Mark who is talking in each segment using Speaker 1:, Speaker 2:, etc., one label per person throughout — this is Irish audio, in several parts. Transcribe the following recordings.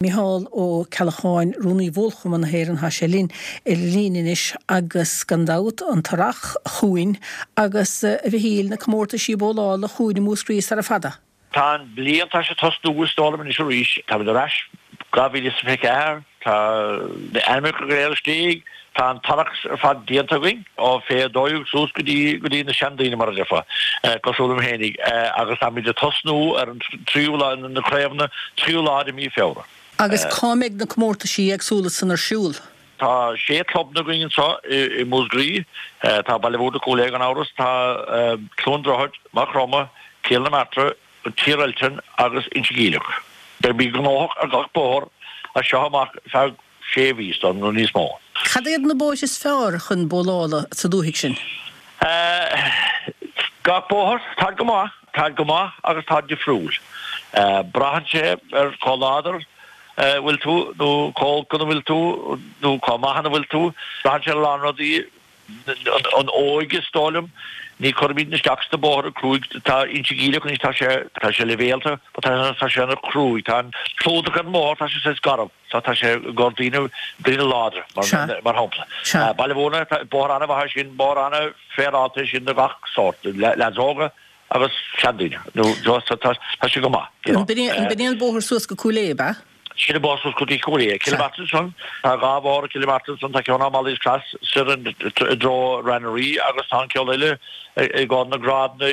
Speaker 1: Micheál Ó Ceallacháin, Rúnaí Bhólchumann na hÉireann, tá sé linn ar an líne anois agus gan dabht an t-earrach chugainn agus, a Mhichíl, na comórtaisí bólála chugainn i Múscraí sara fada.
Speaker 2: Tá an bhliain, tá sé ag tosnú is dóigh liom anois arís. Táimid ar ais 2024, tá na ainmneacha go léir istigh, tá an t-earrach ar fad déanta againn, ó fé 12 suas go dtí go dtí na seandaoine mar a déarfá, cosúil liom fhéinig, agus táimid ag tosnú ar an tríú lá, na craobhanna, tríú lá de mhí Feabhra.
Speaker 1: Agus cá mbeidh na comórtaisí éagsúla san ar siúl?
Speaker 2: Tá sé clubanna againn anseo i Múscraí, tá Baile Mhúirne, Cúil Aodha gan amhras, tá Cluain Droichead, Maigh Chromtha, Cill na Martra, Tír Eiltín agus Inse Geimhleach. Beimid gnóthach ar gach bóthar as seo amach feadh sé mhí nó níos mó.
Speaker 1: Cad iad na bóithre is fearr chun bólála sa dúthaigh sin?
Speaker 2: Gach bóthar, táid go maith, táid go maith agus táid difriúil. Braitheann sé ar chomh láidir a bhfuil tú nó chomh olc ina bhfuil tú nó chomh maith ina bhfuil tú. Braitheann sé ar a lán rudaí. An óige is dóigh liom. Ní chuirimid isteach sna bóithre cruaidh. Tá Inse Geimhleach anois, tá sé, tá sé leibhéalta, but tá, tá sé ana chruaidh. Tá an clúdach ar an mbóthar, tá sé saghas garbh. So tá sé i gcomhair daoine, daoine láidre, mar,
Speaker 1: Sea.
Speaker 2: mar shampla.
Speaker 1: Sea.
Speaker 2: Baile Mhúirne, tá bóthar an-mhaith é sin, bóthar an-fhéaráilte é sin do gach sórt, leaids óga agus seandaoine. Nó, so tá, tá sé go maith, you know.
Speaker 1: An b'in é, an b'in é an bóthar suas go Cúil Aodha, ab ea?
Speaker 2: Sin an bóthar suas go dtí Cúil Aodha. Cill na Martra ansan, tá dhá bhóthar i gCill na Martra ansan, tá ceann ó Molly's Cross soir i dtreo Rath na Rí agus tá an ceann eile i gcomhair na grádanna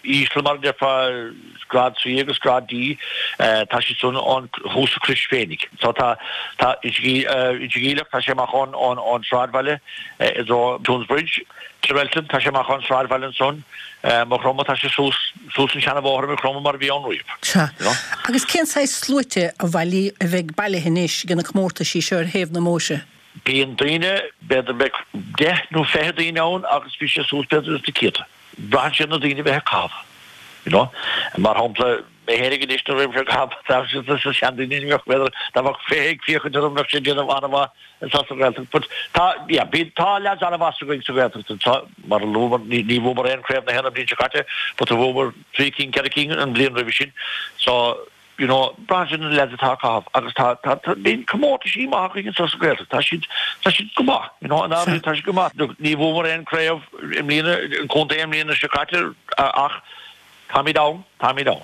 Speaker 2: íseal mar a déarfá, grád C agus grád D, tá siad san ón thuas sa Chrois féinig. So tá, tá Inse Geimhleach, tá sé amach ón, ón, ón sráidbhaile i dtreo Toonsbridge. Tír Eiltín, tá sé amach ón sráidbhaile ansan. Maigh Chromtha, tá sé suas, suas an seana-bhóthar i Maigh Chromtha mar a bhí ann riamh.
Speaker 1: Sea.
Speaker 2: You know?
Speaker 1: Agus cén saghas sluaite a bhailí, a bheidh bailithe anois ag na comórtaisí seo ar thaobh na mbóithre?
Speaker 2: Bíonn daoine, b'fhéidir beidh deich nó 20 daoine ann agus bhí sé suas b'fhéidir ins na céadta. Braitheann sé ar na daoine a bheith ag caitheamh. You know? Mar shampla, mé fhéinig anois nuair a bhí mise ag caitheamh, tá sé seandaoine, ní bheadh, b'fhéidir, dá mbeadh 20 ag féachaint orm bheadh sé ag déanamh an-mhaith. Anseo sa Ghaeltacht but tá, yeah, bíonn, tá leaids an-mhaith againn sa Ghaeltacht anseo, mar a luamar, ní, ní bhuamar aon Craobh na hÉireann an bhliain seo caite but bhuamar trí cinn, ceithre cinn an bhliain roimhe sin so, you know, braitheann sé ar na leaids atá ag caitheamh agus tá, tá, tá, bíonn comórtaisí maith againn anseo sa Ghaeltacht, tá siad, tá siad go maith, you know, in áirithe tá siad go maith. Look, ní bhuamar aon craobh i mbliana, an contae i mbliana seo caite ach Táimid ann, táimid ann.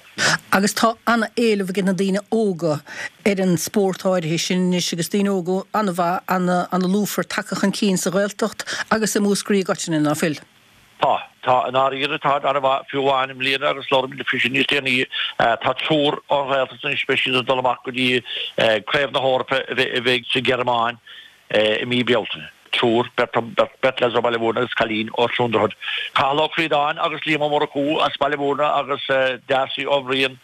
Speaker 1: Agus tá an-éileamh ag na daoine óga ar an spórt áirithe sin anois agus daoine óga an-mhaith, an-lúfar tagtha chun cinn sa Ghaeltacht agus i Múscraí i gcoitinne, ná fuil?
Speaker 2: Tá, tá, i ndáiríre tá an-mhaith, fiú amháin i mbliana agus labhróimid faoi sin níos déanaí, tá triúr ón Ghaeltacht anois, beidh siad ag dul amach go dtí Craobh na hEorpa a bheidh sa Ghearmáin i mí Bealtaine. Triúr, beirt leaids ó Bhaile Mhúirne agus cailín ó Chluain Droichead. Cathal Ó Críodáin agus Liam Ó Murchú as Baile Mhúirne agus Darcy Ó Bhriain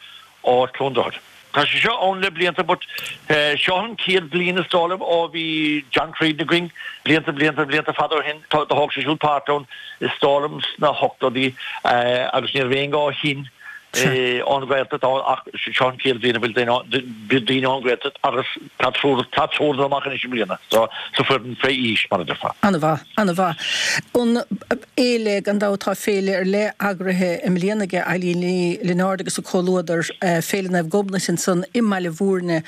Speaker 2: ó Chluain Droichead. Tá sé seo ann le blianta but seo an chéad bhliain is dóigh liom ó bhí John Creedon againn, blianta blianta blianta fada ó shin. Do thóg sé siúd páirt ann is dóigh liom sna hochtóidí agus ní raibh éinne ó shin ón Ghaeltacht ann ach seo an chéad bhliain a bhfuil daoine ón Ghaeltacht agus tá triúr tá triúr dul amach anois i mbliana so sa foireann fé aois mar a déarfá.
Speaker 1: An-mhaith, an-mhaith. An fhéile, gan dabht tá féile ar leith eagraithe i mbliana ag Eileen Ní Lionáird agus a comhluadar, Féile Naomh Gobnait ansan i mBaile Mhúirne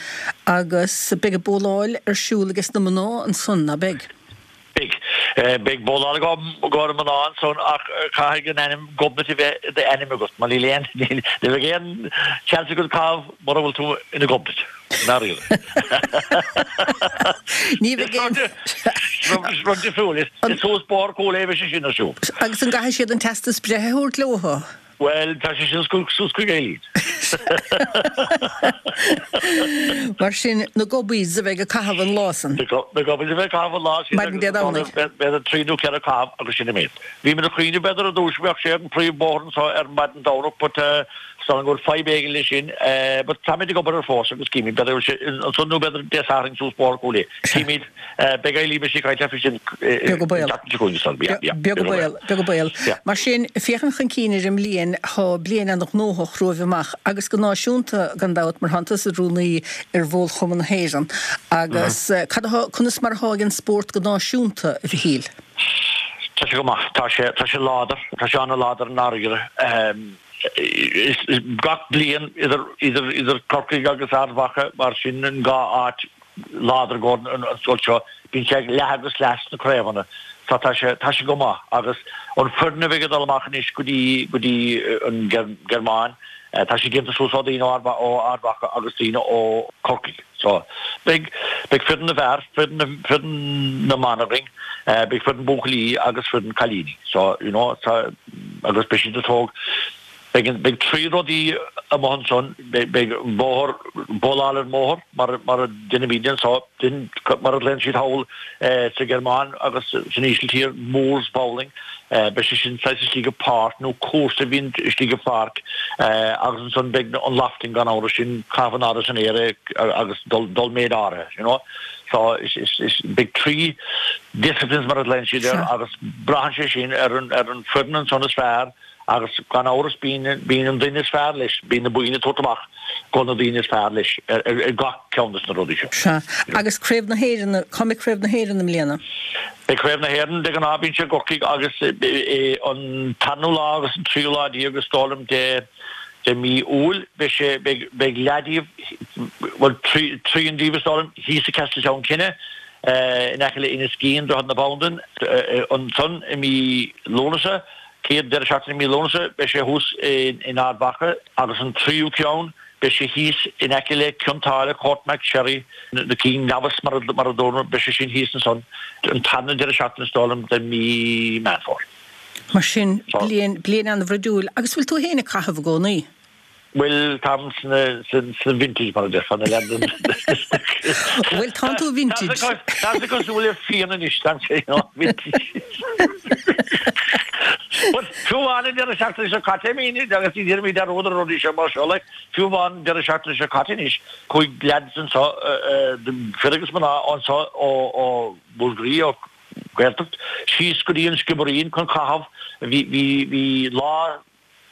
Speaker 1: agus beidh an bóláil ar siúl ages na mná ansan, ná beidh?
Speaker 2: Beidh. Beidh bóláil i gcomhair na mná ansan ach caithfidh an ainm Gobnait a bheith i d'ainm agat mar níl aon, ní bheidh aon chance agat caitheamh mura bhfuil tú ina Gobnait, i ndáiríre.
Speaker 1: Ní bheidh aon.
Speaker 2: Rud difriúil. Is suas Bóthar Chúil Aodha a bheidh sé sin ar siúl.
Speaker 1: Agus an gcaithfidh siad an teastas breithe a thabhairt leo?
Speaker 2: Bhuel, tá sé sin suas chuig Eileen.
Speaker 1: Mar sin, na Gobbies a bheidh ag caitheamh an lá san.
Speaker 2: Na Gobbies a bheidh ag caitheamh an lá sin.
Speaker 1: Maidin Dé Domhnaigh.
Speaker 2: B'fhéidir trí nó ceithre caitheamh agus sin an méid. Bhí muid ag cuimhneamh b'fhéidir ar dtús go mbeadh sé ar an príomhbhóthar anseo ar maidin Domhnach but is dóigh liom go bhfuil fadhb éigin leis sin. But táimid ag obair air fós agus címid b'fhéidir go bhfuil sé ansan nó b'fhéidir Dé Sathairn suas Bóthar Chúil Aodha. Címid. Beidh Eileen beidh sí ag caint leat faoi sin
Speaker 1: Beag an baol.
Speaker 2: an tseachtain seo chugainn is dóigh liom. Yeah, yeah.
Speaker 1: Beag an baol, beag an baol.
Speaker 2: Yeah.
Speaker 1: Mar sin, féachaint chun cinn ar an mbliain, tá bliain an-ghnóthach romhaibh amach agus go náisiúnta gan dabht mar tánn tusa id rúnaí ar Bhólchumann na hÉireann agus cad atá, conas mar atá ag an spórt go náisiúnta, a Mhichíl?
Speaker 2: Tá sé go maith. Tá sé, tá sé láidir. Tá sé an-láidir i ndáiríre. Gach bliain idir idir idir Corcaigh agus Ard Mhacha mar sin an dhá áit láidir i gcomhair an scoil seo, bíonn sé leath agus leath sna craobhanna so tá sé tá sé go maith agus an foireann a bheidh ag dul amach anois go dtí go dtí an Ghearmáin tá sé déanta suas ó daoine ó Ard Mhacha agus daoine ó Corcaigh so beidh beidh foireann na bhfear, foireann na foireann na mban againn, beidh foireann buachaillí agus foireann cailíní so you know tá agus beidh siad ag tóg beidh an beidh 3 rudaí amuigh ansan beidh beidh an bóthar bowláil ar an mbóthar mar mar a deinimíd anso sin mar a ghlaonn siad thall sa Ghearmáin agus san Ísiltír moors bowling beidh sé sin saghas istigh i páirc nó cúrsa a bhíonn istigh i pháirc agus ansan beidh an lofting gan amhras sin caitheamh in airde san aer agus dul dul méid áirithe you know so is is is beidh 3 disciplines mar a ghlaonn siad air agus braitheann sé sin ar an ar an foireann ansan is fearr agus gan amhras bíonn bíonn an duine is fearr leis, bíonn na boinn ag tabhairt amach go na daoine is fearr leis ar ar gach ceann des na rudaí seo.
Speaker 1: Sea. Agus Craobh na hÉireann, cá mbeidh Craobh na hÉireann i mbliana?
Speaker 2: Beidh Craobh na hÉireann, de ghnáth bíonn sé i gCorcaigh agus an tarna lá agus an tríú lá déag is dóigh liom de de mí Iúil beidh sé beidh beidh leath díobh bhuel trian díobh is dóigh liom thíos i Castletown Kinne in aice le Inis Gean, Droichead na Bandan, ansan i mí Lúnasa, chéad deireadh seachtaine i mí Lúnasa, beidh sé thuas in Ard Mhacha agus an tríú ceann, beidh sé thíos in aice le Cionn tSáile, Courtmacsherry, na King Nevis mar a dúramar, beidh sé sin thíos ansan an tarna deireadh seachtaine is dóigh liom de mí Meán Fómhair.
Speaker 1: Mar sin, bliain, bliain an-bhruidiúil. Agus bhfuil tú féin ag caitheamh i gcónaí?
Speaker 2: Bhuel, táim sna vintage, mar a déarfá, na leaid.
Speaker 1: Bhuel, tánn tú vintage.
Speaker 2: Tá sé cosúil le fíon anois, tá sé, you know, vintage. But fiú amháin an deireadh seachtaine seo caite, I mean, agus ní déanaimid dearúd ar rudaí seo mar seo, like, fiú amháin an deireadh seachtaine seo caite anois, chuaigh leaids anseo, fir agus mná anseo ó Mhúscraí, ó Gaeltacht, síos go dtí an Sciobairín chun caitheamh, bhí, bhí, bhí lá,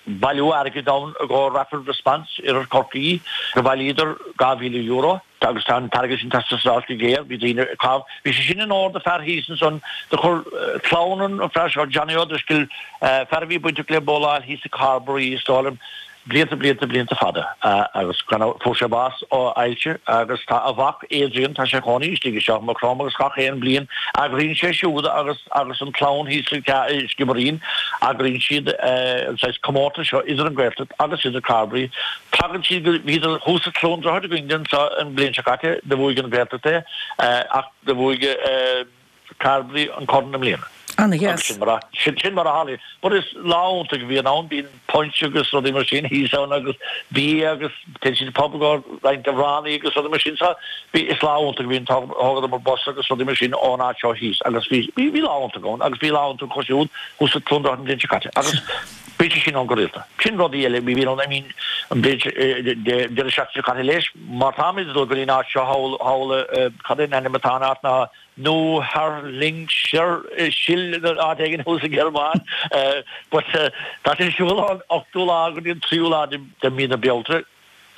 Speaker 2: bailiú airgid ann i gcomhair Rapid Response Oirthear Chorcaí. Do bhailíodar €2,000 agus tá an t-airgead sin ag teastáil go géar. Bhí daoine ag caitheamh. Bhí sé sin in onóir do fear thíos ansan. Do chuir clann an fear seo, Johnny O'Driscoll, fear a bhí bainteach le bowláil thíos i Carbery is dóigh liom, blianta, blianta, blianta fada agus fuair sé bás ó ailse agus tá a mhac Adrian, tá sé ina chónaí istigh i Maigh Chromtha agus gach aon bliain eagraíonn sé siúd agus agus an clann thíos sa Sciobairín, eagraíonn siad an saghas comórtas seo idir an Ghaeltacht agus idir Carbery. Tagann siad go, bhíodar thuas i Cluain Droichead againn anso an bhliain seo caite, do bhuaigh an Ghaeltacht é ach do bhuaigh Carbery an corn i mbliana.
Speaker 1: Ana-dheas.
Speaker 2: Sin mar a, sin mar a tharlaíonn. But is lá iontach a bhíonn ann, bíonn punch agus rudaí mar sin thíos ann agus bia agus téann siad pub go roinnt amhránaí agus rudaí mar sin. So bhí, is lá iontach a bhíonn, thógadar bus agus rudaí mar sin ón áit seo thíos agus bhí, bhí, bhí lá iontach ann agus bhí lá iontach acu siúd thuas i Cluain Droichead an bhliain seo caite agus bíonn sé sin ann go rialta. Sin rudaí eile, bhí, bhí ann, I mean, an bhliain seo, deireadh seachtaine seo caite leis, mar táimid ag dul go dtí an áit seo thall, thall, cad é an ainm atá an áit ná, Neuharlingersiel áit éigin thuas sa Ghearmáin. But tá sé ar siúl ón 8ú lá go dtí an 3ú lá de mhí na Bealtaine.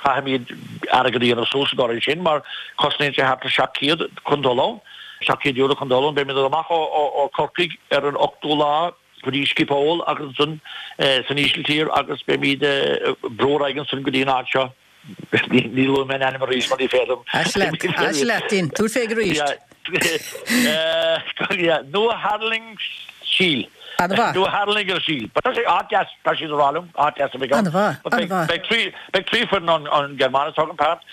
Speaker 2: Caithfimid airgead a dhéanamh suas i gcomhair sin mar cosnaíonn sé thart ar 700 chun dul ann. €700 chun dul ann. Beimid amach ó Chorcaigh ar an 8ú lá go dtí Schiphol agus ansan san Ísiltír agus beimid ag brú ar aghaidh ansan go dtí an áit seo. Ní luafaidh mé an ainm arís mar ní féidir liom.
Speaker 1: Ais leat, ais leat, Dean. Tabhair fé arís.
Speaker 2: Neuharlingersiel.
Speaker 1: An-mhaith.
Speaker 2: Neuharlingersiel. But tá sé áit deas, tá siad ag rá liom, áit deas a bheidh ann.
Speaker 1: An-mhaith, an-mhaith.
Speaker 2: Beidh 3 foireann ón Ghearmáin ag tógaint páirt,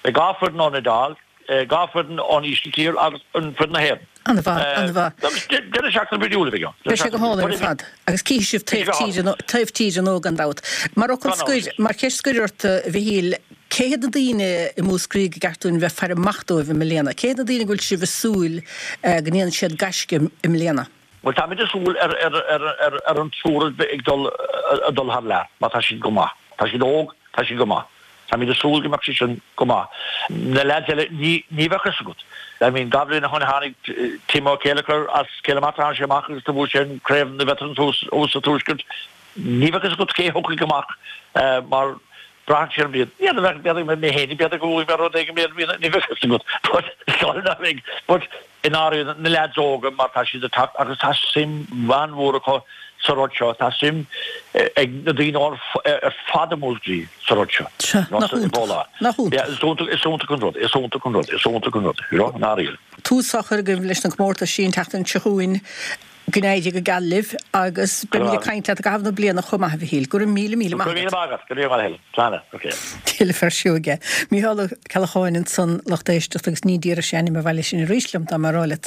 Speaker 2: beidh 2 foireann ón Iodáil, 2 foireann ón Ísiltír agus an foireann na hÉireann.
Speaker 1: An-mhaith, an-mhaith.
Speaker 2: Agus deireadh seachtaine brídiúil a bheidh ann.
Speaker 1: Beidh sé go hálainn ar fad. Agus cífidh sibh taobh tíre, taobh tíre nó gan dabht. Mar fhocal scoir, mar cheist scoir ort, a Mhichíl, cé hiad na daoine i Múscraí gur ceart dúinn bheith ag faire amach dóibh i mbliana? Cé hiad na daoine go bhfuil sibh ag súil go ndéanfaidh siad gaisce i mbliana?
Speaker 2: Bhuel, táimid ag súil ar ar ar an triúr ag dul ag dul thar lear, mar tá siad go maith. Tá siad óg, tá siad go maith. Táimid ag súil go mbeadh siad sin go maith. Na leaids eile, ní ní bheadh fhios agat. I mean, 2 bhliain ó shoin tháinig Tim Ó Céileachair as Cill na Martra, tháinig sé amach agus do bhuaigh sé an craobh na veterans thuas thuas sa Tuaisceart. Ní bheadh fhios agat cé thiocfaidh amach mar braitheann sé ar an mbliain. N'fheadar, b'fhéidir mé féin, b'fhéidir go bhfuair mé rud éigin, ní bheadh fhios agat. But, sorry, ná beidh. But. I ndáiríre, na leaids óga, mar tá siad ag teacht agus tá suim an-mhór acu sa rud seo, tá suim ag na daoine ar fad i Múscraí sa rud seo.
Speaker 1: Sea, nach iontach, nach
Speaker 2: iontach. Is iontach, is iontach an rud, is iontach an rud, is iontach an rud, you know, i ndáiríre.
Speaker 1: Tús á chur agaibh leis na comórtais an tseachtain seo chugainn. Go n-éirí go geal libh agus beimid ag caint leat i gcaitheamh na bliana chomh maith, a Mhichíl. Go raibh míle, míle maith
Speaker 2: agat. Go raibh míle maith agat. Go raibh maith agat. Slán. Ok.
Speaker 1: Tuilleadh fear seoige. Mícheál Ó Ceallacháin ansan, lucht éisteachta, agus ní déarfadh sé ainm an bhaile sin arís liom dá mba rá leat.